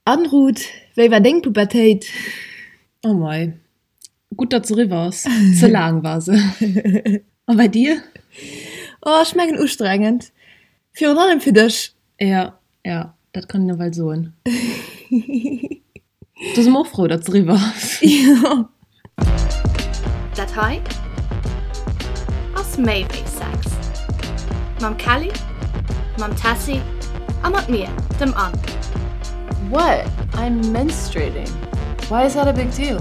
An Ruth, wéi war deng Pubertéit? Oh mei, gutt datt se eriwwer ass, ze laang war se. A bei dir? Oh, ech mengen ustrengend, virun allem fir dech. Jo, jo, dat kann een ewell soen. Do si mer och frou, datt se eriwwer ass. Jo. Dat hei ass méi wéi Sex. Mam Kelly, mam Tessy a mat mir, dem Anne. What? I'm menstruating. Why is that a big deal?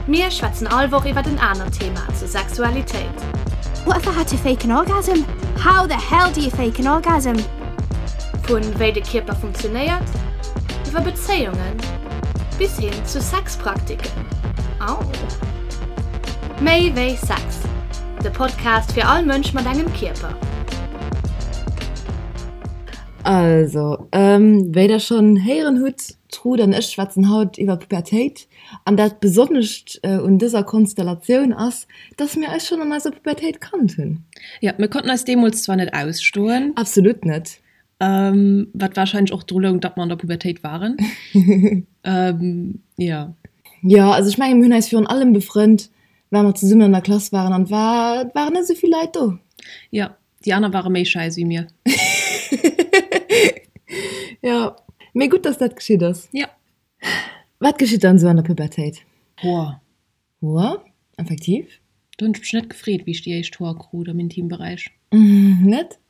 Mir schwätzen all Woch iwwert en anert Thema zur Sexualitéit. What if I had to fake an orgasm? How the hell do you fake an orgasm? Vun wéi de Kierper funktionéiert, iwwer Bezéiungen bis hin zu Sexpraktiken. Au! Méi wéi Sex, de Podcast fir all Mënsch mat engem Kierper. Also, wéi der schonn héieren hutt, d'Ruth an ech schwätzen haut iwwer Pubertéit. An dat Besonnescht un dëser Konstellatioun ass, dass mir eis schonn an eiser Pubertéit kannt hunn. Jo, mir konnten eis deemools zwar net ausstoen. Absolut net. Wat warscheinlech och dru loung, datt mer an der Pubertéit waren. Jo. Jo, also ech mengen, mir hunn eis virun allem befrënnt, well mer zesummen an der Klass waren an et war, et waren net esou vill Leit do. Jo, déi aner ware méi schei wéi mir. Jo, mee gutt, dass dat geschitt ass. Jo. Wat geschitt dann esou an der Pubertéit? Hoer. Hoer, effektiv. Do hunn ech mech net gefreet, wéi ech déi éischt Hoer krut am Intimberäich. Net?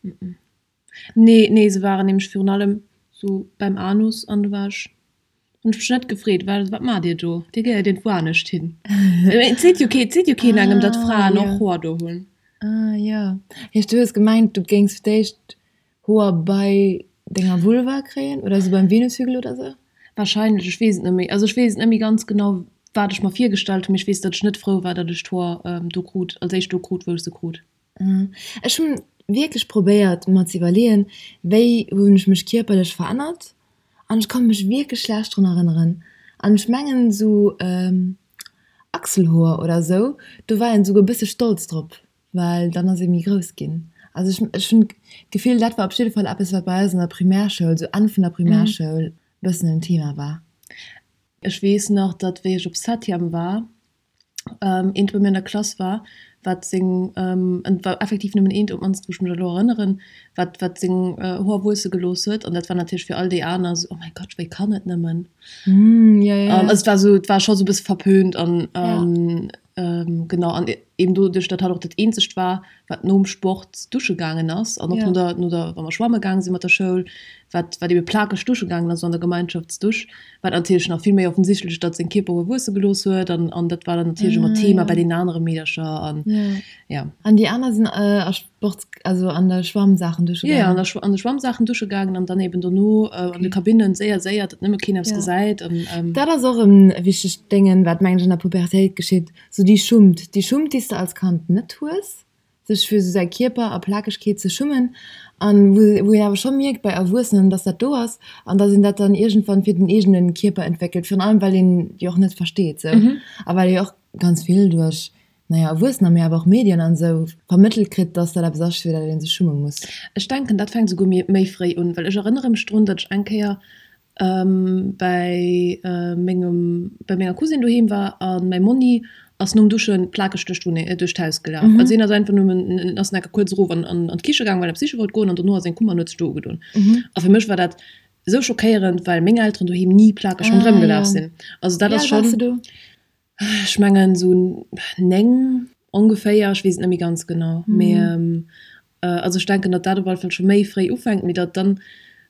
Nee, nee, se waren nämlech virun allem sou beim Anus an do war ech, hunn ech mech net gefreet, well wat maacht Dir do? Dir gehéiert iergendwou anescht hin. Et seet jo kee, et seet jo keen engem, datt Fraen och Hoer do hunn. Ah jo. Heescht du hues gemengt, du géings fir d'éischt Hoer bei denger Vulva kréien oder sou beim Venushügel oder sou? Wahrscheinlech, ech weess et net méi. Also ech weess et net méi ganz genau, wat ech mer virgestallt hunn, mee ech weess, datt ech net frou war, datt ech d'Hoer do krut, als éischt do krut, wou ech se krut. Ech hunn wierklech probéiert mer ze iwwerleeën, wéi hunn ech mech kierperlech verännert an ech konnt mech wierklech schlecht drun erënneren an ech mengen sou Achselhoer oder sou, do war een souguer e bësse stolz drop. Well dann ass ee méi grouss ginn. Also ech, ech hunn d'Gefill, dat war op jidde Fall eppes, wat bei eis an der Primärschoul, sou Enn vun der Primärschoul, e bëssen en Thema war. Ech weess nach, datt wéi ech op Septième war, eent bei mir an der Klass war, wat seng, et war effektiv nëmmen eent, op d'mannst wou ech mech elo erënneren, wat, wat seng Hoer wuesse gelooss huet. An dat war natierlech fir all déi aner esou, Oh mäi Gott, wéi kann et nëmmen? Also et war esou, et war scho sou e bësse verpönt an Genau, an eben doduerch, datt hatt och dat eenzegt war, wat nom Sport dusche gaangen ass an och no der, no der, wa mer schwamme gaange si mat der Schoul, wat, wat ebe plakeg dusche gaangen ass, esou an der Gemeinschaftsdusch, war et natierlech nach vill méi offensichtlech, datt seng Kierperhoer wuesse gelooss huet an, an dat war dann natierlech ëmmer Thema bei deenen anere Meedercher an, ja. An déi aner sinn a Sports, also an der Schwammsaachen dusche gaangen? Jo, an der, an de Schwammsaachen dusche gaangen an dann eben dono an de Kabinnen, séier, séier, datt nëmme keen eppes gesäit an. Dat ass och e wichtegt Déngen, wat mengen ech an der Pubertéit geschitt, sou déi Schummt, déi Schummt, déi s de als Kand net hues, sech fir sou säi Kierper a Plakegkeet ze schummen an wou wou een awer scho mierkt bei Erwuessenen, dass dat do ass an dass een dat dann iergendwann fir den eegene Kierper entwéckelt, virun allem well een jo och net versteet sou a well ee och ganz vill duerch naja, Erwuessener, mee awer och Medien an esou vermëttelt kritt, dass dat eppes ass, fir dat ee sech schumme muss. Ech denken, dat fänkt esouguer méi fréi un, well ech erënnere mech drun, datt ech eng Kéier bäi mengem, bäi menger Cousine doheem war a mäi Monni ass nom Duschen plakeg duerch d'Wunneng, duerch d'Haus gelaf. Also hien ass einfach nëmmen, ass enke kuerz erof an an d'Kiche gaang, well en eppes siche wollt goen an dono ass en komm an huet sech do ugedoen. A fir mech war dat esou schockéierend, well meng Elteren doheem ni plakeg ronderëm gelaf sinn. Also dat ass schonn. Ech mengen esou 9 ongeféier, ech weess et net méi ganz genau. Mee also ech denken, datt dat op alle Fall scho méi fréi ufänkt, mee datt dann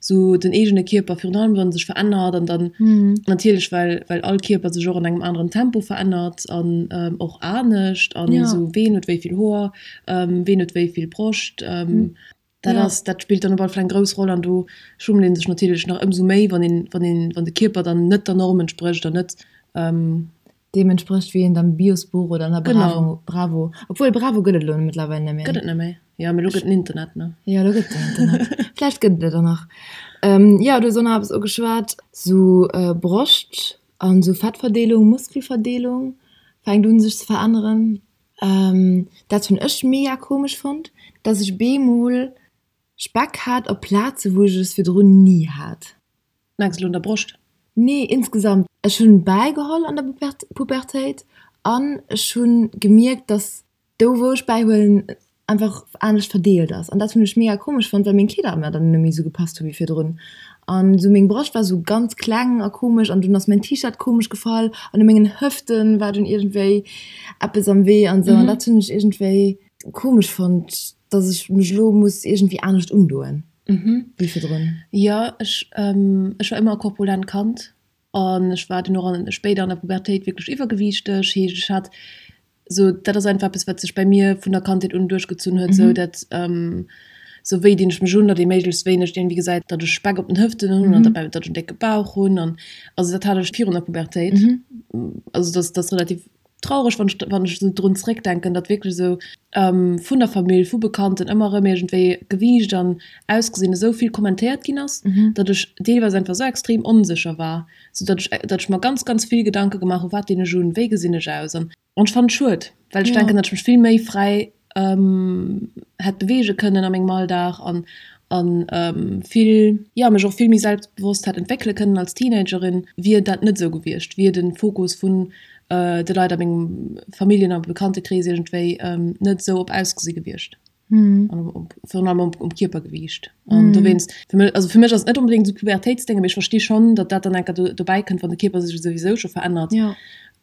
esou den eegene Kierper virun allem wann e sech verännert an dann natierlech well well all Kierper sech och an engem aneren Tempo verännert an och anescht an esou ween huet wéi vill Hoer, ween huet wéi vill Broscht. Dat ass, dat spillt dann op alle Fall eng grouss Roll an do schummelt ee sech natierlech nach ëmsou méi, wann een, wann een, wann de Kierper dann net der Norm entsprécht an net. Deem entsprécht, wéi een am Biosbuch oder an der Bravo, Bravo, obwuel Bravo gëtt et elo mëttlerweil net méi. Gëtt et net méi, jo, mee elo gëtt den Internet, ne? Jo, elo gëtt den Internet. Vläicht gëtt et et och nach. Jo, du hues och nach eppes ugeschwat, sou Broscht an sou Fettverdeelung, Muskelverdeelung fänkt un sech ze veränneren. Dat hunn ech mega komesch fonnt, dass ech beemol Speck hat op Plaze wou ech es virdrun ni hat. Mengs elo un der Broscht? Nee, insgesamt. Ech hunn bäigeholl an der Pubertéit an ech hunn gemierkt, dass do wou ech bäihuelen einfach anescht verdeelt ass. An dat hunn ech mega komesch fonnt, well meng Kleeder mer dann net méi esou gepasst hu wéi virdrun. An esou meng Broscht war esou ganz kleng a komesch an dunn ass mäin T-Shirt komesch gefall an u mengen Hëften war dunn iergendwéi eppes am Wee an esou. An dat hunn ech iergendwéi komesch fonnt, dass ech mech elo muss iergendwéi anescht undoen wéi virdrun. Jo, ech ech war ëmmer e korpulent Kand an ech war dunn och an spéider an der Pubertéit wierklech iwwergewiichteg. Heescht ech hat sou, dat ass einfach eppes wat sech bei mir vun der Kandheet un duerchgezunn huet, sou dat sou wéi dinn ech mech un, datt ee méiglechst wéineg iergendwéi gesäit, datt ech Speck op den Hëften hunn an datt ech en décke Bauch hunn an also dat hat ech virun der Pubertéit. Also dat ass relativ Traureg, wann ech, wann ech esou drun zréckdenken, datt wierklech esou vun der Famill, vu Bekannten ëmmer erëm iergendwéi Gewiicht an Ausgesinn esou vill kommentéiert ginn ass, datt ech deelweis einfach esou extrem onsécher war, sou datt ech, datt ech mer ganz, ganz vill Gedanke gemaach hu wat dinn ech un, wéi gesinn ech aus an. An ech fannen et schued, well ech denken, datt ech mech vill méi fräi hätt beweege kënnen a mengem Alldag an an vill, jo, mech och vill méi selbstbewosst hätt entwéckele kënnen als Teenagerin, wier dat net esou gewiescht, wier de Fokus vun de Leit a mengem Familljen a Bekanntekrees iergendwéi net esou op Ausgesi gewiescht an op virun allem op um Kierpergewiicht. An dowéinst, fir mech, also fir mech ass et net onbedéngt esou Pubertéitsdénge, mee ech versti schonn, datt dat dann eng Kéier dobäi kënnt, wann de Kierper sech souwisou scho verännert,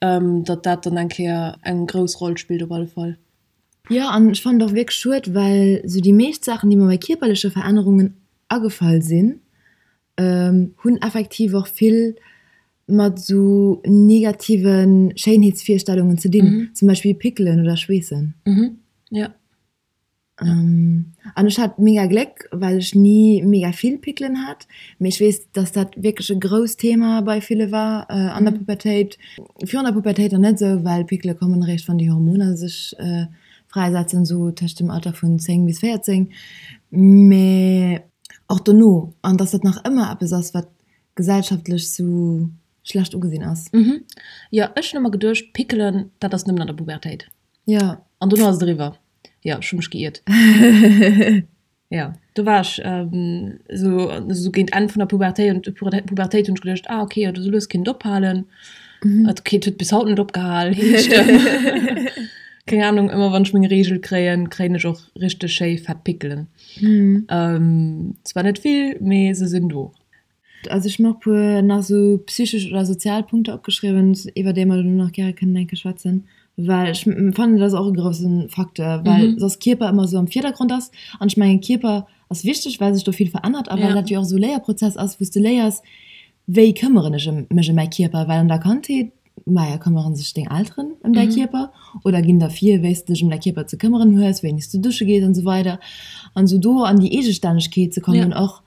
datt dat dann eng Kéier eng grouss Roll spillt op alle Fall. Jo, an ech fannen et och wierklech schued, well sou déi meescht Saachen, déi mer bei kierperleche Verännerungen agefall sinn, hunn effektiv och vill mat sou negative Schéinheetsvirstellungen ze dinn, zum Beispill Pickelen oder Schweessen. Jo. An ech hat mega Gléck, well ech ni mega vill Pickelen hat. Mee ech weess, dass dat wierklech e grousst Thema bei ville war an der Pubertéit. Virun der Pubertéit nach net esou, well Pickele kommen eréischt, wann déi Hormoner sech fräisetzen, esou tëscht dem Alter vun 10 bis 14. Mee och dono. An dass dat nach ëmmer eppes ass, wat gesellschaftlech sou schlecht ugesinn ass. Jo, ech hunn ëmmer geduecht, Pickelen, dat ass nëmmen an der Pubertéit. Jo. An dono ass et eriwwer. Jo, ech hu mech geiert. Jo, do war ech esou, esou géint Enn vun der Pubertéit und Pubertéit hunn ech geduecht, ah okay, jo, esou lues kinnt et ophalen. Et okay, et huet bis haut net opgehal, heescht keng Ahnung, ëmmer wann ech meng Reegel kréien, kréien ech och richteg schéi fett Pickelen. Zwar net vill, mee se sinn do. Also ech hu mer och puer nach esou psychesch oder sozial Punkter opgeschriwwen, iwwer déi mer dann och nach gäre kënnen eng Kéier schwätzen, well ech fannen, dat ass och e grousse Facteur, well soss Kierper ëmmer esou am Virdergrond ass. An ech mengen, Kierper ass wichteg, well sech do vill verännert a well dat jo och esou e Léierprozess ass, wou s de léiers, wéi këmmeren ech mech ëm mäi Kierper, well an der Kandheet, maja, këmmere sech deng Elteren ëm däi Kierper oder ginn der vir, wéi s de dech ëm däi Kierper ze këmmeren hues, wéini s du dusche gees an esou weider. An esou do an déi Eegestännegkeet ze kommen och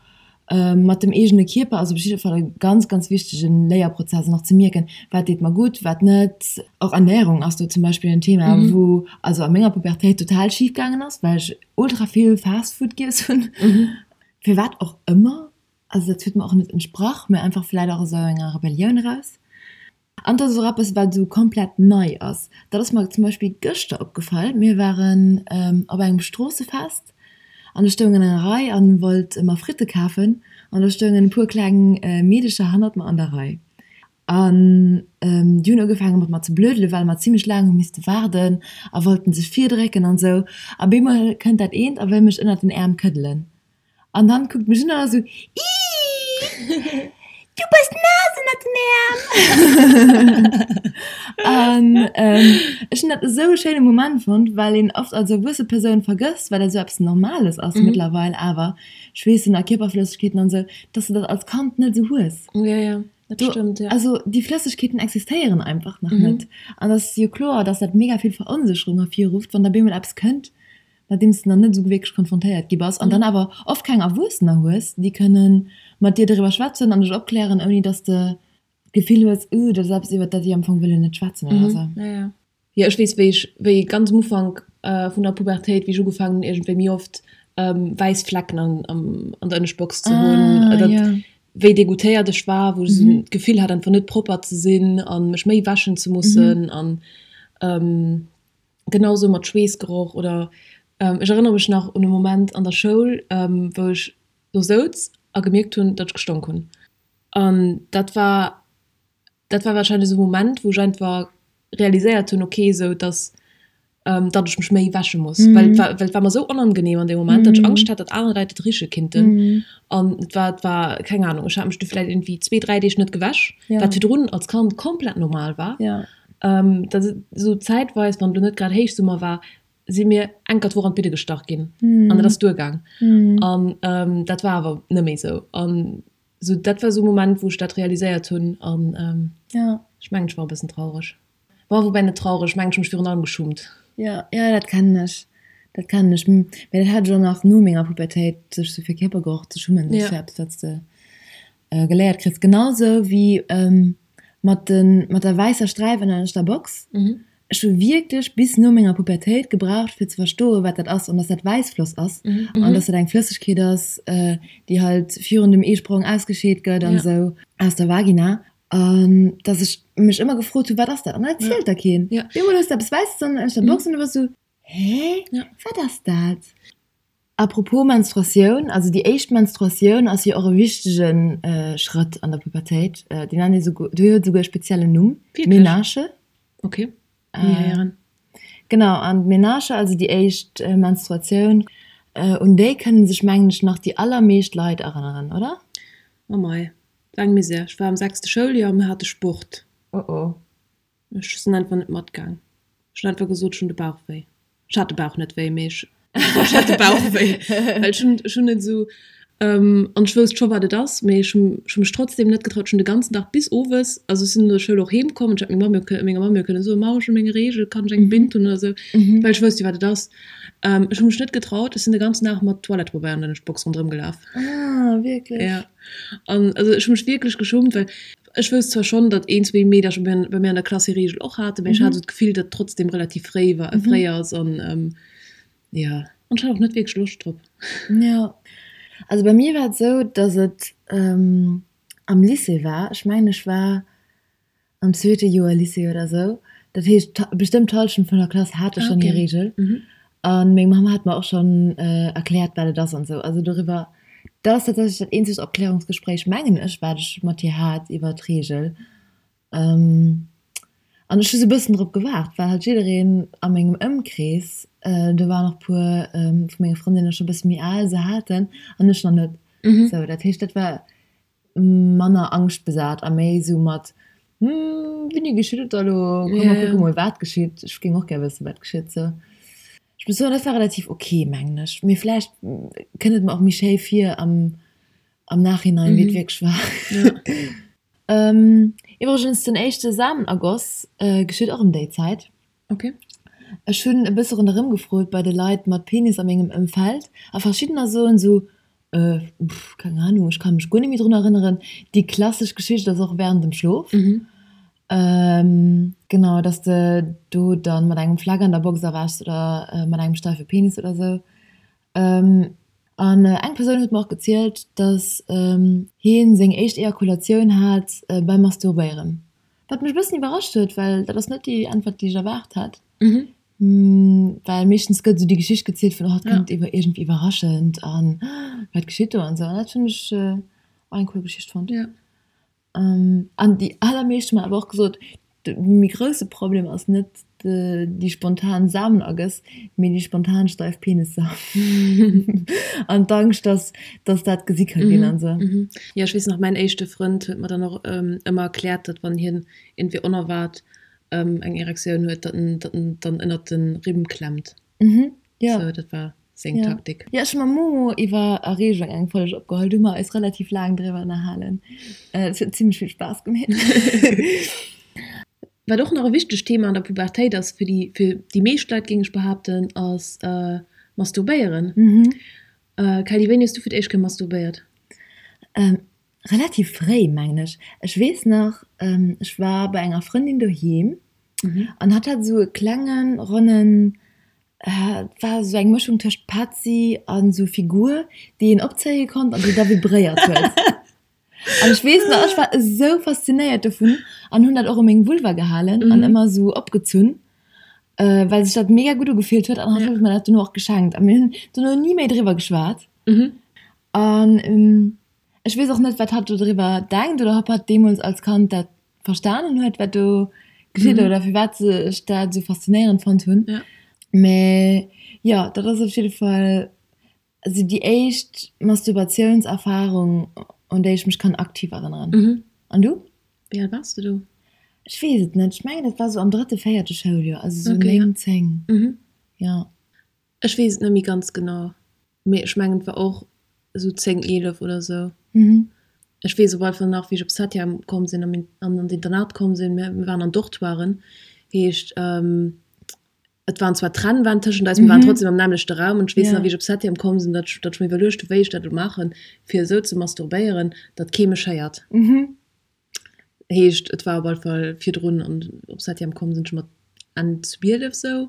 mat dem eegene Kierper ass op jidde Fall e ganz, ganz wichtege Léierprozess an och ze mierken, wat deet mer gutt, wat net. Och Ernärung ass do zum Beispill en Thema, wou also a menger Pubertéit total schif gaangen ass, well ech ultra vill Fast Food giess hunn, firwat och ëmmer. Also dat huet mer och net entsprach, mä einfach vläit och aus esou enger Rebellioun eraus. An dat ass och eppes, wat esou komplett nei ass. Dat ass mer zum Beispill gëschter opgefall. Mir waren op engem Stroossefest an ech stoung an enger Rei an wollt mer Fritte kafen an do stoungen e puer kleng Meedecher hannert mer an der Rei. An déi hunn ugefaange mat mer ze blödelen, well mer zimmlech laang hu misste waarden a wollten sech virdrécken an esou. A bemol kënnt dat eent a wëll mech ënnert den Äerm këddelen. An dann kuckt mech un an ass esou, Iiii, du bass naass ënnert den Äerm! An ech hunn dat esou e schéine Moment fonnt, well een oft als erwuesse Persoun vergësst, well dat esou eppes Normales ass mëttlerweil awer, Schweessen a Kierperflëssegkeeten an esou, dass de dat als Kand net esou hues. Ja, ja, dat stëmmt, ja. Also déi Flëssegkeeten existéieren einfach nach net. An et ass jo kloer, dass dat mega vill Veronsécherung ervirrufft, wann da bemol eppes kënnt, mat deem s de nach net esou wierklech konfrontéiert gi bass an dann awer oft keng Erwuessener hues, déi kënne mat dir doriwwer schwätzen an dech opklären, ouni dass de d'Gefill hues, uh, dat ass eppes, iwwer dat déi am Fong wëllen net schwätzen oder esou. Ja, ja. Jo, ech weess, wéi ech, wéi ganz am Ufank vun der Pubertéit, wéi ech ugefaangen hunn, iergendwéi méi oft wäiss Flecken an, an der Ënneschtbox ze hunn, dat, wéi degoûtéiert ech war, wou ech esou d'Gefill hat, einfach net propper ze sinn a mech méi wäschen ze mussen an, Genau sou mat Schweessgeroch oder ech erënnere mech nach un e Moment an der Schoul, wou ech do souz a gemierkt hunn, datt ech gestonk hunn. An dat war, dat war wahrscheinlech esou e Moment, wou ech einfach realiséiert hunn, okay, esou dass, datt ech mech méi wäsche muss. Well et war, well et war mer esou onangenehm an deem Moment, datt ech Angscht hat, datt aner Leit et riche kinnten. An et war, et war, keng Ahnung, ech hat mech du vläicht irgendwie zwee, dräi Deeg net gewäsch, wat virdrun als Kand komplett normal war. Dat esou zäitweis, wann elo net grad Héichsummer war, si mir enker d'Woch an d'Bidde gestach ginn an dat ass duergaang. An dat war awer net méi esou. An esou dat war esou e Moment, wou ech dat realiséiert hunn an ech mengen, ech war e bëssen traureg. Bon, woubäi net traureg, ech mengen, ech hu mech virun allem geschummt. Jo, jo, dat kennen ech. Dat kennen ech. Mä dat hat ech och nach no menger Pubertéit, sech esou fir Kierpergeroch ze schummen, dat ass jo eppes, wat s de geléiert kriss. Genau sou wéi mat de mat der wäisser Sträif ënner der Box. Ech hu wierklech bis no menger Pubertéit gebraucht fir ze verstoen, wat dat ass an dass dat Wäissfloss ass an dass dat eng Flëssegkeet ass, déi halt virun dem Eesprong ausgescheet gëtt an esou aus der Vagina. An dass ech mech ëmmer gefrot hu, wat ass dat? An dat erzielt der keen. Op eemol hues de eppes Wäisses ënner der Box an du bass esou, hä, wat ass dat? A propos Menstruatioun, also déi éischt Menstruatioun ass jo och e wichtege Schrëtt an der Pubertéit. Déi nennt ee souguer, déi huet esouguer e speziellen Numm, Menarche. Ok, ni héieren. Genau, an d'Menarche, also déi éischt Menstruatioun, un déi kënne sech mengen ech nach déi allermeescht Leit erënneren, oder? Oh mei, war eng Misär. Ech war am sechste Schouljoer a mir hate Sport. Oh oh. Ech sinn einfach net matgaang. Ech hunn einfach gesot, ech hunn de Bauch wéi. Ech hat de Bauch net wéi, mee ech ech hat de Bauch wéi. Well ech hunn ech hunn net esou an ech wousst scho wat et ass, mee ech hunn ech hunn mech trotzdem net getraut. Ech hunn de ganzen Dag bis owes, also ech sinn no der Schoul och heem komm an ech hätt meng Mamm jo kë menger Mamm jo kënne soen, Mamm ech hunn meng Reegel, kann ech eng Bind hunn oder esou, well ech wousst jo wat et ass. Ech hu mech net getraut, ech sinn de ganzen Dag mat Toilettepabeier an der Box ronderëm gelaf. Ah wierklech? Ja. An also ech hu mech wierklech geschummt, well Ech wousst zwar schonn, datt een, zwee Meedercher bei mir an der Klass hir Reegel och haten, mee ech hat esou d'Gefill, datt et trotzdem relativ fréi war, fréi ass an jo, an ech hat och net wierklech Loscht drop. Jo, also bei mir war et esou, datt et am Lycée war. Ech mengen, ech war am zweete Joer Lycée oder esou. Dat heescht, bestëmmt d'Hallschent vun der Klass hate schonn hir Reegel. An meng Mamm hat mer och schonn erkläert, wat et ass an esou. Also doriwwer, dat ass tatsächlech dat eenzegt Opklärungsgespréich, mengen ech, wat ech mat hir hat iwwer d'Reegel. An ech hu sou e bëssen drop gewaart, well halt jiddereen a mengem Ëmkrees, do waren och puer vu menge Frëndinne scho bësse méi al, se haten an ech nach net. Sou, dat heescht, dat war manner angschtbesat a méi esou mat, Hm, wéini geschitt et da lo? Komm mer kucke mol wat geschitt. Ech géing och gär wëssen, wat geschitt. Sou, ech muss soen, dat war relativ ok, mengen ech. Mee vläicht kënnt et mer och méi schéi vir am am Nachhinein, wéi et wierklech war. Iwwregens, den éischte Samenergoss geschitt och ëm déi Zäit. Ok. Ech hunn e bësse ronderëm gefrot bei de Leit mat Penis a mengem Ëmfeld a verschiddener soen esou, Äh, pff, keng Ahnung, ech ka mech guer net méi drun erënneren. Déi klassesch Geschicht ass och während dem Schlof. Genau, dass de do dann mat engem Fleck an der Box erwächs oder mat engem steife Penis oder sou. An eng Persoun huet mer och gezielt, dass hien seng éischt Ejakulatioun hat beim Masturbéieren. Wat mech e bëssen iwwerrascht huet, well dat ass net déi Äntwert, déi ech erwaart hat. Well meeschtens gëtt esou déi Geschicht gezielt vun, oh, et kënnt iwwer iergendwéi iwwerraschend an wat geschitt do an esou. An dat hunn ech och eng cool Geschicht fonnt. An déi allermeescht hu mer awer och gesot, de méi grousse Problem ass net déi spontan Samenergëss, mee déi spontan steif Penisser an d'Angscht, dass dass dat gesi ka ginn an esou. Jo, ech weess nach, mäin éischte Frënd huet mer dann och ëmmer erkläert, datt wann hien iergendwéi onerwaart eng Erektioun huet, datt en datt en dann ënnert de Rimm klemmt. Mhm, jo. Sou, dat war seng Ja. Taktik. Jo, ech hu mam Momo iwwer Erreegung eng Folg opgeholl, do hu mer eis relativ laang driwwer ënnerhalen. Et huet zimmlech vill Spaass gemeet. Wat och nach e wichtegt Thema an der Pubertéit ass fir déi fir déi meescht Leit, géing ech behaapten, ass Masturbéieren. Mhm. Kelly, wéini hues du fir d'éischt Kéier masturbéiert? Relativ fréi, mengen ech. Ech weess nach, ech war bei enger Frëndin doheem an hatt hat esou e klengen, ronnen, et war esou eng Mëschung tëscht Petzi an esou Figur, déi een opzéie konnt an déi da vibréiert huet. An ech weess nach, ech war esou faszinéiert dovun an hunn dat och u meng Vulva gehalen an ëmmer esou opgezunn, well sech dat mega gutt ugefillt huet an hatt huet mer dat dono och geschenkt a mir hunn dono ni méi driwwer geschwat. An. Ech weess och net, wat hatt do driwwer denkt oder ob hatt deemools als Kand dat verstanen huet, wat do geschitt oder firwat ech dat esou faszinéierend fonnt hunn. Mee jo, dat ass op jidde Fall esou déi éischt Masturbatiounserfarung, un déi ech mech kann aktiv erënneren. An du? Wéi al waars de do? Ech weess et net. Ech mengen, dat war esou am drëtte, véierte Schouljoer, also esou 9, 10. Jo. Ech weess et net méi ganz genau. Mee ech mengen et war och esou 10, 11 oder esou. Ech weess op alle Fall nach wéi ech op Septième komm sinn an an d'Internat komm sinn, mir waren an Dortoiren, heescht et waren zwar Trennwänn tëschent eis, mir waren trotzdem am nämmlechte Raum an ech weess nach wéi ech op Septième komm sinn, datt ech datt ech mir iwwerluecht hu wéi ech dat elo maachen fir esou ze masturbéieren, datt kee mech héiert. Heescht et war op alle Fall virdrun an op Septième komm sinn ech mat Enn 12 sou.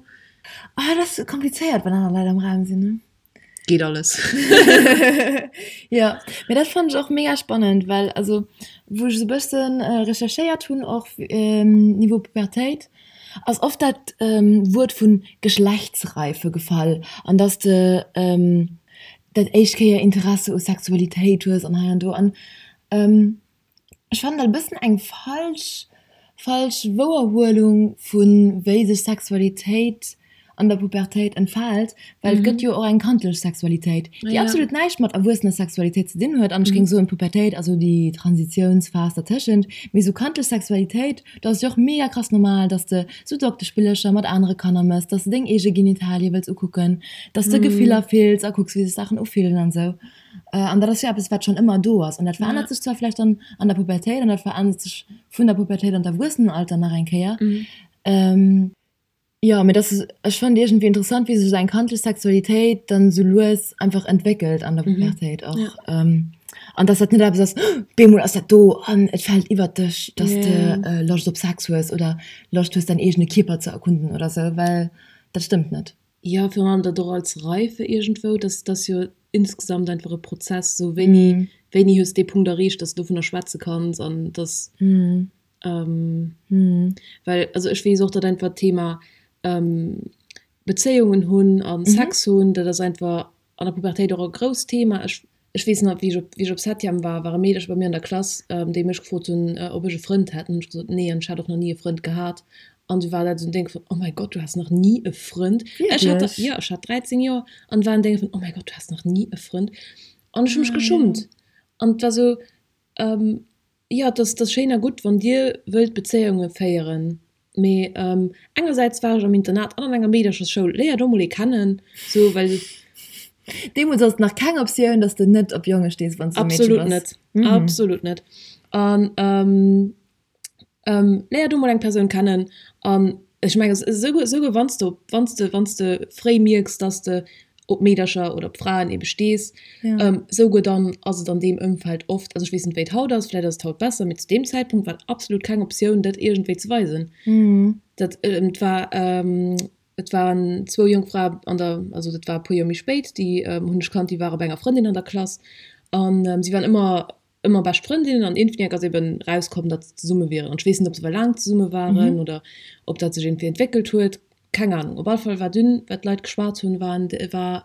Ah dat ass komplizéiert wann aner Leit am Raum sinn ne? Geet alles. Jo, mee dat fannen ech och mega spannend, well also wou ech esou bëssen recherchéiert hunn och Niveau Pubertéit ass oft dat Wuert vun Geschlechtsreife gefall an dass de dat éischt Kéier Interesse u Sexualitéit hues an hei an do an Ech fannen dat e bëssen eng falsch falsch Wouerhuelung vu wéi sech Sexualitéit an der Pubertéit entfaalt, well et gëtt jo och eng kandlech Sexualitéit, déi absolut näischt mat erwuessener Sexualitéit ze dinn huet. An ech géing soen, d'Pubertéit ass esou déi Transitiounsphas dertëschent. Mee esou kandlech Sexualitéit, do ass et jo och mega krass normal, dass de sou Doktespillercher mat anere Kanner mëss, dass de deng eege Genitalie wëlls ukucken, dass de Gefiller fills a kucks, wéi sech Saachen ufillen an esou. An dat ass jo eppes, wat schonn ëmmer do ass. An dat verännert sech zwar vläicht dann an der Pubertéit an dat verännert sech vun der Pubertéit an d'Erwuessenenalter nach eng Kéier. Jo, mee dat ass, ech fannen iergendwéi interessant, wéi sech esou eng kandlech Sexualitéit dann esou lues einfach entwéckelt an der Pubertéit och. An dass dat net eppes ass, bemol ass dat do an et fält iwwert dech, dass de Loscht op Sex hues oder Loscht hues, däin eegene Kierper ze erkunden oder esou, well dat stëmmt net. Jo, virun allem dat och als Reife iergendwou, dass dass jo insgesamt einfach e Prozess, sou wéini wéini hues dee Punkt erreecht, dass de dovunner schwätze kanns an dass well also ech weess och, datt einfach d'Thema Bezéiungen hunn a Sex hunn, dat ass einfach an der Pubertéit och e grousst Thema. Ech Ech weess nach, wéi ech op, wéi ech op Septième war, war e Meederche bei mir an der Klass, déi mech gefrot hunn, ob ech e Frënd hätt. An hunn ech gesot, nee, an ech hat och nach ni e Frënd gehat. An du war dat esou en Déng vun, oh mäi Gott, du has nach ni e Frënd? Ech hat, Wierklech? jo, ech hat 13 Joer an war en Déng vun, oh mäi Gott, du has nach ni e Frënd? An ech hu mech geschummt. An et war esou, Jo, et ass, et ass schéin a gutt, wann Dir wëllt Bezéiunge féieren, mee engersäits war ech am Internat an an enger Meederchersschoul, léier do mol ee kennen, sou, well. Deemools ass et nach keng Optioun, dass de net op Jonge stees, wann s du e Meedche Absolut bass. net, absolut net. An léier do mol eng Persoun kennen an ech mengen, esouguer, esouguer wann s de op, wann s de, wann s de fréi mierks, dass de op Meedercher oder op Fraen ebe stees, esouguer dann ass et an deem Ëmfeld oft, also ech weess net wéi et haut ass, vläicht ass et haut besser, mee zu deem Zäitpunkt war et absolut keng Optioun dat iergendwéi ze weisen. Dat et war et waren zwou jonk Frae an der, also dat war e puer Joer méi spéit, déi hunn ech kannt, déi ware bei enger Frëndin an der Klass an si waren ëmmer ëmmer bescht Frëndinnen an iergendwéi ass eben rauskomm, datt se zesumme wieren. An ech weess net, ob se well laang zesumme waren oder ob dat sech iergendwéi entwéckelt huet, keng Ahnung. Op alle Fall war dunn, wat d'Leit geschwat hunn, waren, war,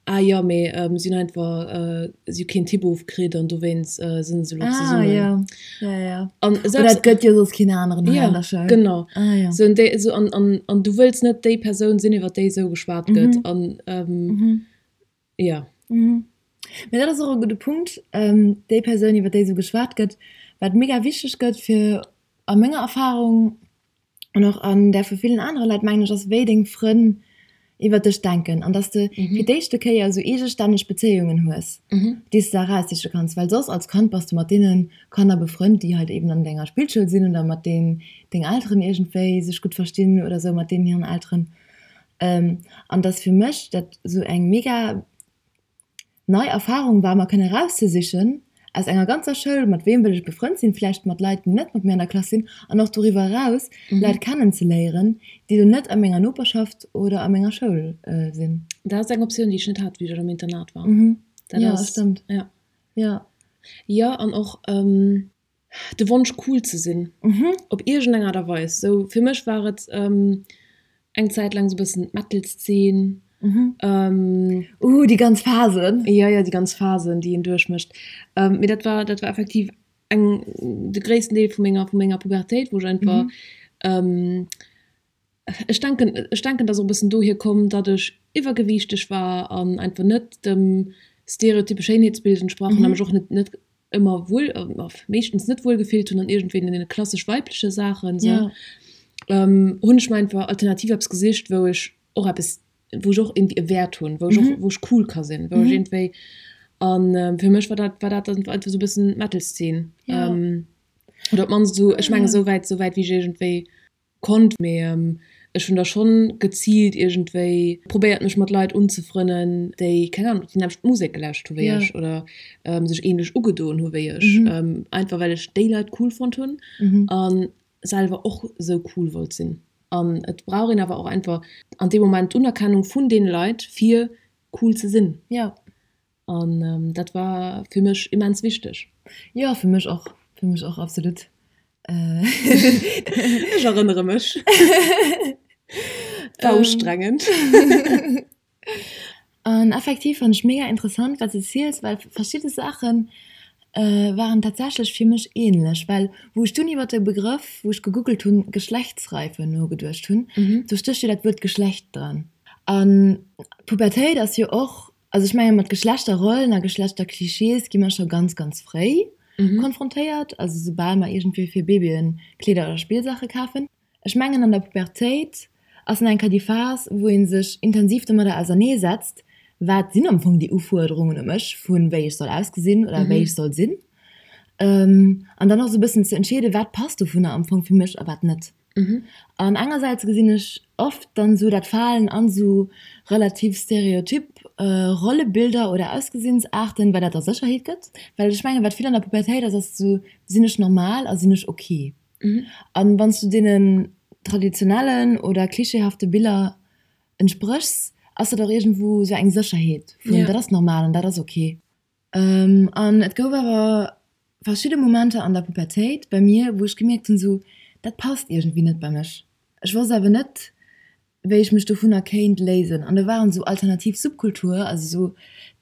ah jo, mee si hunn einfach, si hu keen Typ ofkritt an dowéinst sinn se elo Ah, zesummen. jo, jo, jo. An Oder selbst, et gëtt jo soss keen aneren hei jo, an der Schoul. genau. Ah, jo. Sou, an déi, sou, an, an, an du wëlls net déi Persoun sinn, iwwer déi esou geschwat gëtt. An, jo. Mee dat ass och e gudde Punkt, déi Persoun, iwwer déi esou geschwat gëtt, wat mega wichteg gëtt fir a menger Erfahrung an och an där vu villen anere Leit, mengen ech, ass wéi deng Frënn iwwer dech denken an dass de fir d'éischte Kéier esou eegestänneg Bezéiungen hues, déi s de eraussiche kanns, well soss als Kand bass de mat deene Kanner befrënnt, déi halt eben an denger Spillschoul sinn oder mat deenen deng Elteren iergendwéi sech gutt verstinn oder esou mat deenen hiren Elteren. An dass fir mech dat esou eng mega nei Erfahrung war, mer kënne erauszesichen aus enger ganzer Schoul, mat weem wëll ech befrënnt sinn, vläicht mat Leit, déi net mat mir an der Klass sinn, an och doriwwer eraus Leit kennenzeléieren, déi elo net a menger Noperschaft oder a menger Schoul sinn. Dat ass eng Optioun, déi ech net hat, wéi ech am Internat war. Dat Jo, ass, stëmmt. ja. Jo. Jo, an och de Wonsch cool ze sinn op iergend eng Aart a Weis. Sou fir mech war et eng Zäit laang sou bëssen d'Metal-Szene. Uh, déi ganz Phasen. Jo, jo, déi ganz Phasen, déi een duerchmécht. Mee dat war, dat war effektiv eng, de gréissten Deel vu menger, vu menger Pubertéit, wou ech einfach, ech denken, ech denken, dass och e bëssen dohier komm, datt ech iwwergewiichteg war an einfach net dem stereotype Schéinheetsbild entsprach hunn a mech och net, net ëmmer wuel, meeschtens net wuel gefillt hunn an iergendwéi deene klassesch weibleche Saachen esou, hunn ech mer einfach alternativ eppes gesicht, wou ech och eppes, wou ech och iergendwéi e Wäert hunn, wou ech och, wou ech cool ka sinn, wou ech iergendwéi, an fir mech war dat, war dat dann einfach esou e bëssen d'Metal-Szene. Oder op d'mannst esou, ech mengen esou wäit, esou wäit wéi ech iergendwéi konnt, mee ech hunn da schonn geziilt iergendwéi probéiert mech mat Leit unzefrënnen, déi, keng Ahnung, déi nämmlecht Musek gelauscht hu wéi ech oder sech ähnlech ugedoen hu wéi ech, einfach well ech déi Leit cool fonnt hunn a selwer och esou cool wollt sinn. An et brauch een awer och einfach an deem Moment d'Unerkennung vun deene Leit fir cool ze sinn. An dat war fir mech immens wichteg. Jo, fir mech och, fir mech och, absolut. Ech erënnere mech. War ustrengend. An effektiv fann ech mega interessant, wat s de ziels, well verschidde Saache waren tatsächlech fir mech ähnlech. Well wou ech dunn iwwer de Begrëff, wou ech gegoogelt hunn, Geschlechtsreife nogeduecht hunn, do stécht jo dat Wuert Geschlecht dran. An d'Pubertéit ass jo och Also ech menge mat Geschlechterrollen a Geschlechterklischees gi mer scho ganz, ganz fréi konfrontéiert, also soubal mer iergendwéi fir Babyen Kleeder oder Spillsaache kafen. Ech mengen an der Pubertéit ass nach eng Kéier déi Phas, wou ee sech intensiv domadder auserneesetzt, wat sinn am Fong déi Ufuerderungen u mech, vu wéi ech soll ausgesinn oder wéi ech soll sinn. An dann och esou e bëssen ze entscheeden, wat passt dovunner am Fong fir mech a wat net. An engersäits gesinn ech oft dann sou dat Falen an sou relativ stereotyp Rollebilder oder Ausgesinnsarten, well dat der Sécherheet gëtt. Well ech mengen, wat vill an der Pubertéit ass, ass sou, sinn ech normal a sinn ech ok? An wann s du deenen traditionellen oder klischeehafte Biller entspréchs, ass dat och iergendwou sou eng Sécherheet vun, dat ass normal an dat ass ok. An et gouf awer verschidde Momenter an der Pubertéit bei mir, wou ech gemierkt hunn, sou, dat passt iergendwéi net bei mech. Ech wosst awer net, wéi ech mech dovunner kéint léisen. An do waren sou alternativ Subkultur, also sou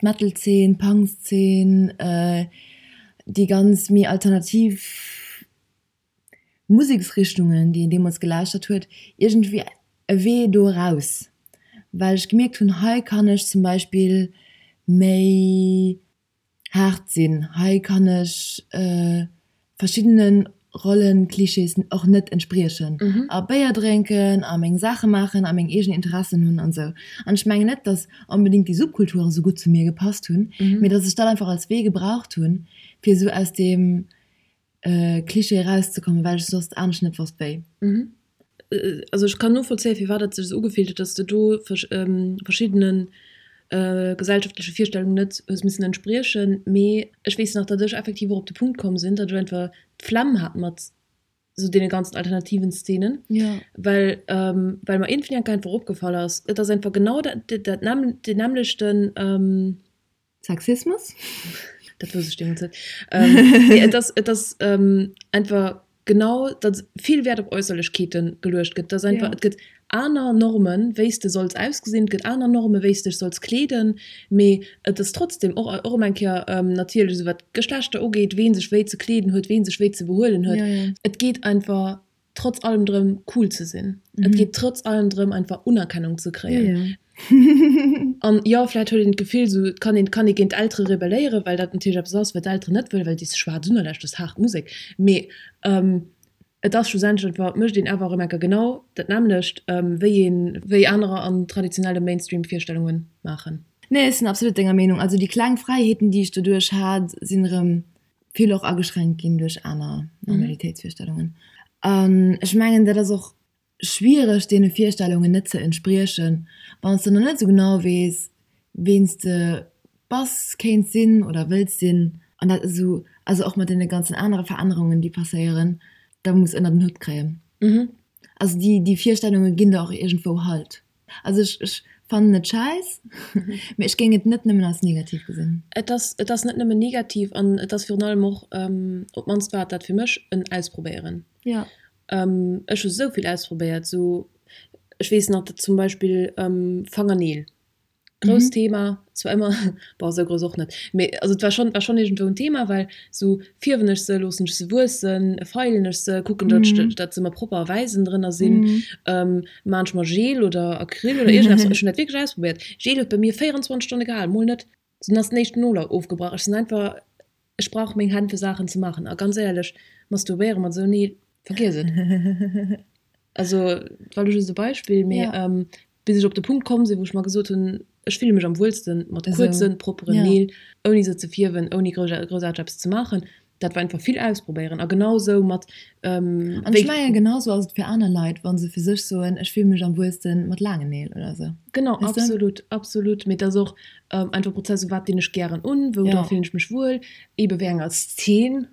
d'Metal-Zeen, d'Punk-Zeen, déi ganz méi alternativ Museksrichtungen, déi een deemools gelauschtert huet, iergendwéi e Wee do eraus, well ech gemierkt hunn, hei kann ech zum Beispill méi haart sinn, hei kann ech verschiddene Rollenklischees och net entspriechen a Béier drénken a meng Saache maachen a meng eegen Interessen hunn an esou. An ech mengen net, datt onbedéngt déi Subkulture esou gutt zu mir gepasst hunn, mee datt ech dat einfach als Wee gebraucht hunn, fir esou aus deem Klischee erauszekommen, well ech soss anescht net wosst wéi. Also ech kann novollzéien, firwat et sech esou ugefillt huet, dass de do verschiddene gesellschaftleche Virstellungen net hues missen entspriechen. Mee ech weess nach, datt ech effektiv och op de Punkt komm sinn, datt ech einfach d'Flemm hat mat esou deene ganzen alternativen Szenen, well well mer iergendwéi enk einfach opgefall ass, et ass einfach genau dat dat deen nämmlechten. Sexismus? Dat wousst ech deemools net. Nee, et ass, et ass einfach genau, datt vill Wäert op Äusserlechkeete geluecht gëtt. Dass einfach, et gëtt aner Normen, wéi s de solls ausgesinn, et gëtt aner Normen, wéi s dech solls kleeden, mee et ass trotzdem och, och erëm eng Kéier natierlech esou wat d'Geschlechter ugeet, ween sech wéi ze kleeden huet, ween sech wéi ze behuelen huet. Et geet einfach trotz allem drëm cool ze sinn. Et geet trotz allem drëm einfach Unerkennung ze kréien. An jo, vläit huet een d'Gefill esou, et kann een, kann ee géint d'Eltere rebelléieren, well dat natierlech eppes ass, wat d'Elteren net wëllen, well déi schwaarz Unerläscht ass haart Musek. Mee et ass schlussendlech einfach, et mécht een awer erëm enker genau dat nämmlecht, wéi een, wéi anerer an traditionelle Mainstream-Virstellunge maachen. Nee, ech sinn absolut denger Meenung. Also déi kleng Fräiheeten, déi ech doduerch hat, sinn erëm vill och ageschränkt ginn duerch aner Normalitéitsvirstellungen. An ech mengen, dat ass och schwiereg, deene Virstellungen net ze entspriechen, wann s de nach net esou genau weess, ween s de bass, kéints sinn oder wëlls sinn. An dat esou, also och mat deene ganzen anere Verännerungen, déi passéieren, da muss ënner den Hutt kréien. Also déi, déi Virstellunge ginn der och iergendwou Halt. Also ech, ech fannen et schäiss, mee ech géing et net nëmmen als negativ gesinn. Et ass, et ass net nëmmen negativ an et ass virun allem och, op d'mannst war et dat fir mech, en Ausprobéieren. Jo. Ech hu sou vill ausprobéiert, sou, ech weess nach, dat zum Beispill Fangerneel. Grousst Thema, zwar ëmmer, bon esou grouss och net, mee also et war schonn, war schonn iergendwou en Thema, well sou fierwen ech se, loossen ech se wuessen, feilen ech se, kucken datt ech, datt se ëmmer propper a wäiss ënnendrënner sinn, maan ech mer Gel oder Acryl oder iergendeppes, ech hunn dat wierklech ausprobéiert. Gel huet bei mir 24 Stonne gehal, mol net, dunn ass den éischten Nol ofgebrach. Ech sinn einfach, ech brauch meng Hänn fir Saachen ze maachen a ganz éierlech, masturbéiere mat esou Neel, vergiess et. Also dat war elo just e Beispill, mee bis ech op de Punkt komm sinn, wou ech mer gesot hunn, ech fille mech am wuelste mat kuerzen, propperen Neel, ouni se ze fierwen, ouni groussaarteg eppes ze maachen. Dat war einfach vill ausprobéieren. A genau sou mat. An ech mengen, genau sou ass et fir aner Leit, wa se fir sech soen, ech fille mech am wuelste mat laangen Neel oder sou. Genau, absolut, absolut. Mee et ass och einfach e Prozess, u wat dinn ech gären un, wou dra fillen ech mech wuel, eebe wéi enger Szen.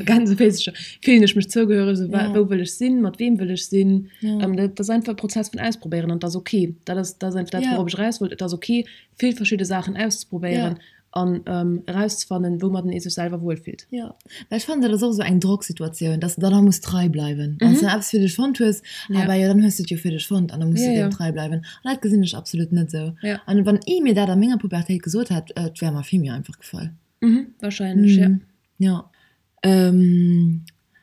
Gänsefüßercher fillen ech mech zougehöreg, so, ja. wou wëll ech sinn, mat wem wëll ech sinn. Ja. Ähm, dat ass einfach e Prozess vun Ausprobéieren an dat ass okay. Dat ass, dat ass einfach dat, ja. wourop ech eraus wollt. Et ass okay, vill verschidde Saachen auszeprobéieren ja. an ähm, erauszefannen, woumat ee sech selwer wuelfillt. Ja. Well ech fannen, dat ass och esou eng Drocksituatioun, dass de dann och muss trei bleiwen. Wann s de eppes fir dech fonnt hues, ja. awer jo, dann hues de et jo fir dech fonnt an da muss ja, du deem ja. trei bleiwen. An dat gesinn ech absolut net esou. Ja. An wann ee mir dat a menger Pubertéit gesot hätt, et wär mer vill méi einfach gefall. Mhm, wahrscheinlech, ja. Jo.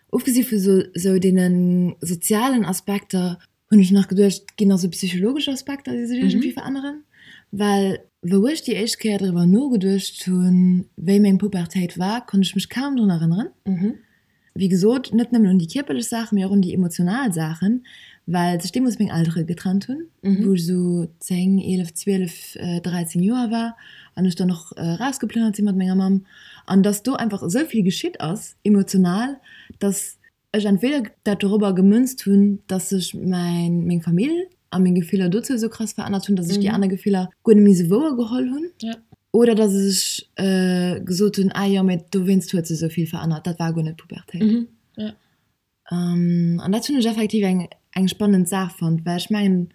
Ofgesi vu sou deene sozialen Aspekter hunn ech nach geduecht, et ginn nach sou psychologesch Aspekter, déi sech iergendwéi veränneren. Well wou ech déi éischt Kéier driwwer nogeduecht hunn, wéi meng Pubertéit war, konnt ech mech kaum drun erënneren. Wéi gesot, net nëmmen un déi kierperlech Saachen, mee och un déi emotional Saachen, well sech deemools meng Eltere getrennt hunn, wou ech esou 10, 11, 12, 13 Joer war an ech dann och erausgeplënnert si mat menger Mamm. An dass do einfach esou vill geschitt ass emotional, dass ech entweder dat dorobber gemënzt hunn, dass sech mäin, meng Famill a meng Gefiller dozou esou krass verännert hunn, dass ech déi aner Gefiller guer net méi esou wouer geholl hunn. Oder dass ech gesot hunn, ah jo, mee dowéinst huet sech esou vill verännert, dat war guer net Pubertéit. An dat hunn ech effektiv eng eng spannend Saach fonnt, well ech mengen,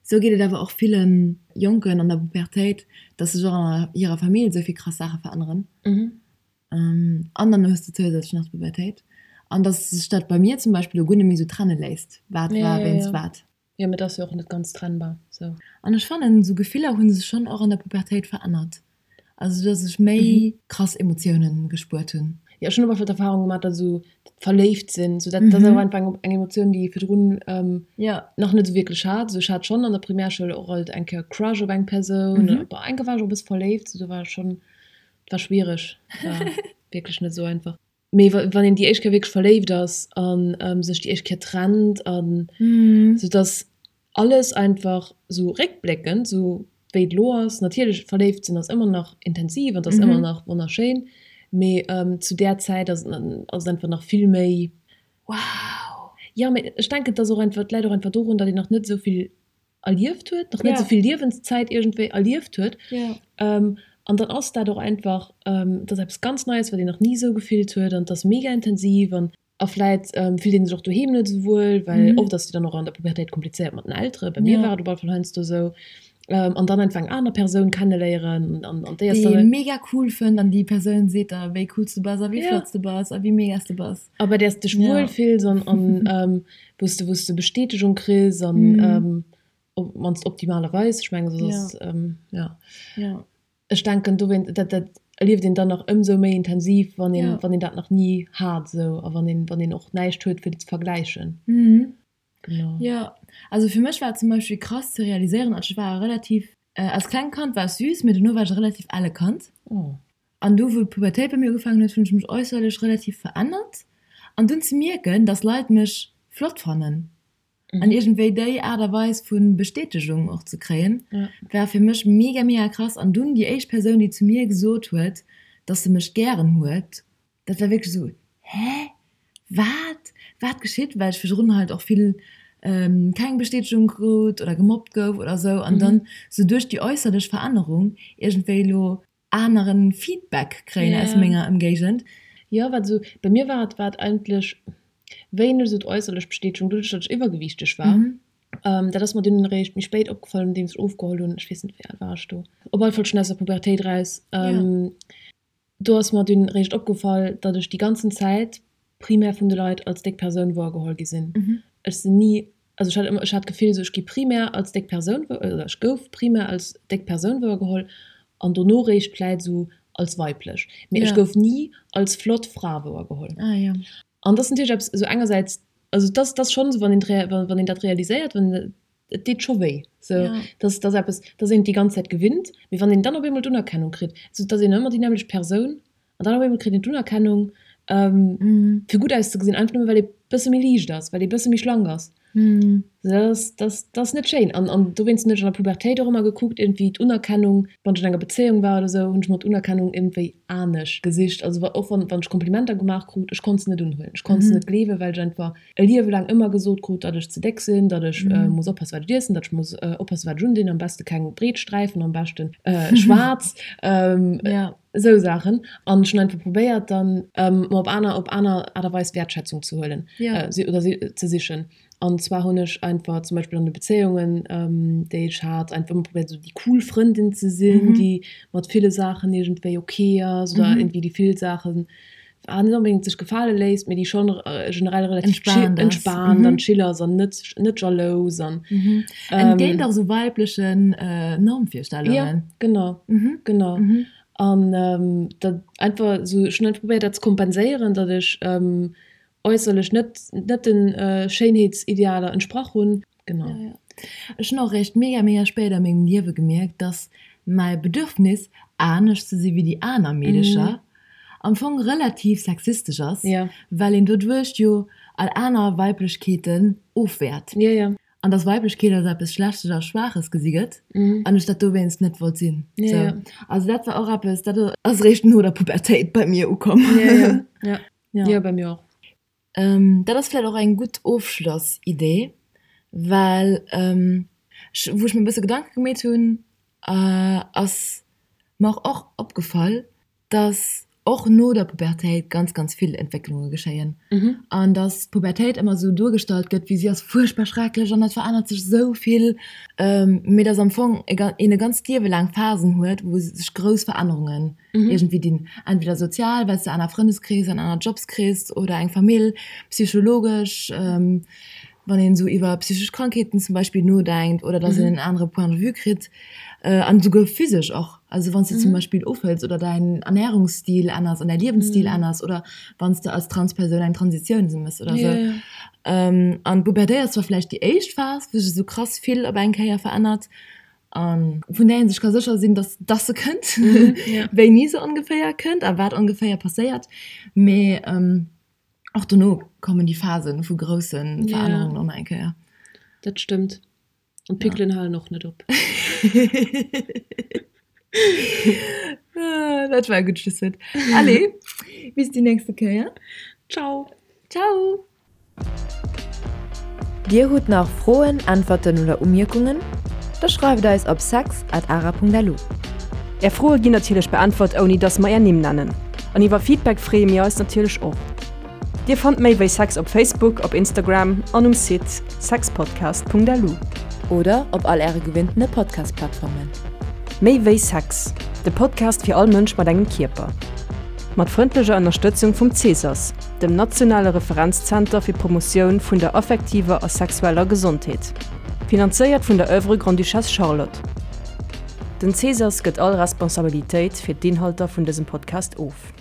esou geet et awer och ville Jonken an der Pubertéit, dass sech och an hirer Famill esou vill krass Saache veränneren. An dann hues de zousätzlech nach d'Pubertéit. An dass sech dat bei mir zum Beispill elo guer net méi esou trenne léisst, wat war wéinst wat. Jo, mee et ass jo och net ganz trennbar sou. An ech fannen, esou Gefiller hu sech schonn och an der Pubertéit verännert. Also dass ech méi krass Emotiounen gespuert hunn. Jo, ech hunn op alle Fall d'Erfahrung gemaach, dass esou verléift sinn, sou dat ass awer einfach eng eng Emotioun, déi ee virdrun nach net esou wierklech hat. Sou ech hat schonn an der Primärschoul och alt eng Kéier Crush op eng Persoun, bon eng Kéier war ech och e bësse verléift, sou do war ech schonn, et war schwiereg, war wierklech net esou einfach. Mee wann een déi éischt Kéier wierklech verléift ass a sech déi éischt Kéier trennt an sou dass alles einfach sou réckbléckend, sou wéi et elo ass, natierlech verléift sinn ass ëmmer nach intensiv an et ass ëmmer nach wonnerschéin, mee zu där Zäit ass et ass et einfach nach vill méi wow. Jo, mee ech denken et ass och einfach, et läit och einfach dorun, datt een nach net esou vill erlieft huet, nach net esou vill Liewenszäit iergendwéi erlieft huet. An dann ass dat och einfach, et ass eppes ganz Neies, wat een nach ni esou gefillt huet an et ass mega intensiv an a vläit fillt ee sech och doheem net esou wuel, well oft ass et jo dann och an der Pubertéit komplizéiert mat den Elteren, bei mir war et op alle Fall heiansdo esou, an dann einfach eng aner Persoun kenneléieren an an déi ass dann. Déi ee mega cool fënnt an déi Persoun seet der, wéi cool s du bass a wéi flott s du bass a wéi mega s du bass. A bei där s de dech wuel fills an an wou s de wou s de Bestätegung kriss an op d'mannst optimalerweis, ech mengen soss ass jo. Jo. Ech denken dowéint, dat dat erlieft een dann nach ëmsou méi intensiv, wann een wann een dat nach ni hat esou a wann een wann een och näischt huet fir et ze vergläichen. Genau. Jo, also fir mech war et zum Beispill krass ze realiséieren, also ech war relativ, als klengt Kand war ech süß, mee dono war ech e relativ elle Kand. An du wou d'Pubertéit bei mir ugefaangen huet, hunn ech mech äusserlech relativ verännert. An dunn ze mierken, dass Leit mech flott fannen an iergendwéi déi Aart a Weis vu Bestätegung och ze kréien, war fir mech mega mega krass. An dunn déi éischt Persoun, déi zu mir gesot huet, dass se mech gären huet, dat war wierklech esou, Hä? Wat? Wat geschitt? Well ech virdrun halt och vill keng Bestätegung krut oder gemobbt gouf oder esou an dann esou duerch déi äusserlech Verännerung iergendwéi elo aneren Feedback kréien aus menger Ëmgéigend. Jo, wat esou bei mir war, et war et eigentlech wéineg esou d'äusserlech Bestätegung, doduerch datt ech iwwergewiichteg war. Dat ass mer dunn eréischt méi spéit opgefall, nodeems ech ofgeholl hunn. Ech weess net, wéi al war ech do? Op alle Fall schonn aus der Pubertéit eraus. Do ass mer dunn eréischt opgefall, datt ech déi ganzen Zäit primär vun de Leit als déck Persoun wouergeholl gi sinn. Ech sinn ni. Also ech hat ëmmer, ech hat d'Gefill esou, ech gi primär als déck Persoun wou, oder ech gouf primär als déck Persoun wouergeholl an dono réischt vläit esou als weiblech. Mee ech gouf ni als flott Fra wouergeholl. Ah jo. An dat ass natierlech eppes esou engersäits, also dat ass schonn esou, wann een, wann een dat realiséiert, wann, et deet scho wéi. Sou, dat ass, dat ass eppes, dat ass een déi ganz Zäit gewinnt. Mee wann een dann op eemol d'Unerkennung kritt, esou, et ass een ëmmer déi nämmlecht Persoun An dann op eemol kritt een d'Unerkennung, fir gutt auszegesinn, einfach nëmme well ee bësse méi liicht ass, well ee bësse méi schlank ass. Dat ass, dat ass, dat ass net schéin. An, an dowéinst hunn ech an der Pubertéit och ëmmer gekuckt, iergendwéi d'Unerkennung, wann ech an enger Bezéiung war oder esou, hunn ech mer d'Unerkennung iergendwéi anescht gesicht. Also wa, och wann, wann ech Komplimenter gemaach krut, ech konnt se net unhuelen. Ech konnt se net gleewen, well ech einfach e Liewe laang ëmmer gesot krut, datt ech ze déck sinn, datt ech muss oppassen, wat ech iessen, datt ech muss oppassen, wat ech undinn, am beste keng breet Sträifen, am beschten schwaarz. Esou Saachen. An ech hunn einfach probéiert dann mer op aner, op aner Aart a Weis Wäertschätzung ze huelen oder ze sichen. An zwar hunn ech einfach zum Beispill an de Bezéiungen, déi ech hat, einfach ëmmer probéiert esou déi cool Frëndin ze sinn, déi mat ville Saachen iergendwéi ok ass oder iergendwéi déi vill Saachen net onbedéngt sech gefale léisst, mee déi schonn generell relativ chill, entspaant an chill ass an net, net jalous an. Entgéint och esou weiblechen Normvirstellungen. Jo, genau, genau. An dat einfach esou, ech hunn einfach probéiert dat ze kompenséieren, datt ech äusserlech net, net de Schéinheetsidealer entsprach hunn. Genau. Ja, ja. Ech hunn och eréischt mega, mega spéit a mengem Liewe gemierkt, dass mäi Bedürfnis, anescht ze si wéi déi aner Meedecher, am Fong relativ sexistesch ass, well een doduerch jo all aner Weiblechkeeten ofwäert. Ja, ja. An dass Weiblechkeet als eppes Schlechtes a Schwaaches gesi gëtt an ech dat dowéinst net wollt sinn. Ja, Sou. ja. Also dat war och eppes, dat ass eréischt no der Pubertéit bei mir ukomm. Ja, ja. Ja. Ja. Ja, bei mir och. Dat ass vläicht och eng gutt Ofschlossidee, well ech, wou ech mir e bësse Gedanke gemeet hunn, ass mer och opgefall, dass och no der Pubertéit ganz, ganz vill Entwécklunge geschéien an dass d'Pubertéit ëmmer esou duergestallt gëtt, wéi si ass fuerchtbar schrecklech an et verännert sech esou vill, mee dass am Fong een e ganzt Liewe laang Phasen huet, wou sech grouss Verännerungen iergendwéi dinn, entweder sozial, well s de aner Frëndeskrees an aner Jobs kriss oder eng Famill, psychologesch, wann een esou iwwer psychesch Krankheeten zum Beispill nodenkt oder dass een en anere Point de vue kritt an esouguer physesch och, also wann s de zum Beispill ofhëls oder däin Ernärungsstil änners an däi Liewensstil änners oder wann s de als Transpersoun eng Transitioun méchs oder esou. An d'Pubertéit ass zwar vläicht déi éischt Phas, wou sech esou krass vill op eng Kéier verännert, A vun där ee sech ka sécher sinn, dass dass se kënnt, wéini se ongeféier kënnt a wat ongeféier passéiert. Mee och dono kommen déi Phase vu grousse Verännerungen och nach eng Kéier. Dat stëmmt. An d'Pickelen halen och net op. Dat war e gutt Schlusswuert. Allez, bis déi nächste Kéier. Ciao. Ciao. Dir hutt nach Froen, Äntwerten oder Umierkungen? Da schreift eis op sex at ara.lu. Är Froe ginn natierlech beäntwert ouni dass mer är Nimm nennen. An iwwer Feedback freeë mir eis natierlech och. Dir fannt méi wéi Sex op Facebook, op Instagram an um Site sexpodcast.lu. Oder op all äre gewinntene Podcast-Plattformen. Méi wéi Sex, de Podcast fir all Mënsch mat engem Kierper. Mat frëndlecher Ënnerstëtzung vum Cesas. dem nationale Referenzzenter fir d'Promotioun vun der affektiver a sexueller Gesondheet. Finanzéiert vun der Oeuvre Grande-Duchesse Charlotte. Den Cesas gëtt all Responsabilitéit fir d'Inhalter vun dësem Podcast of.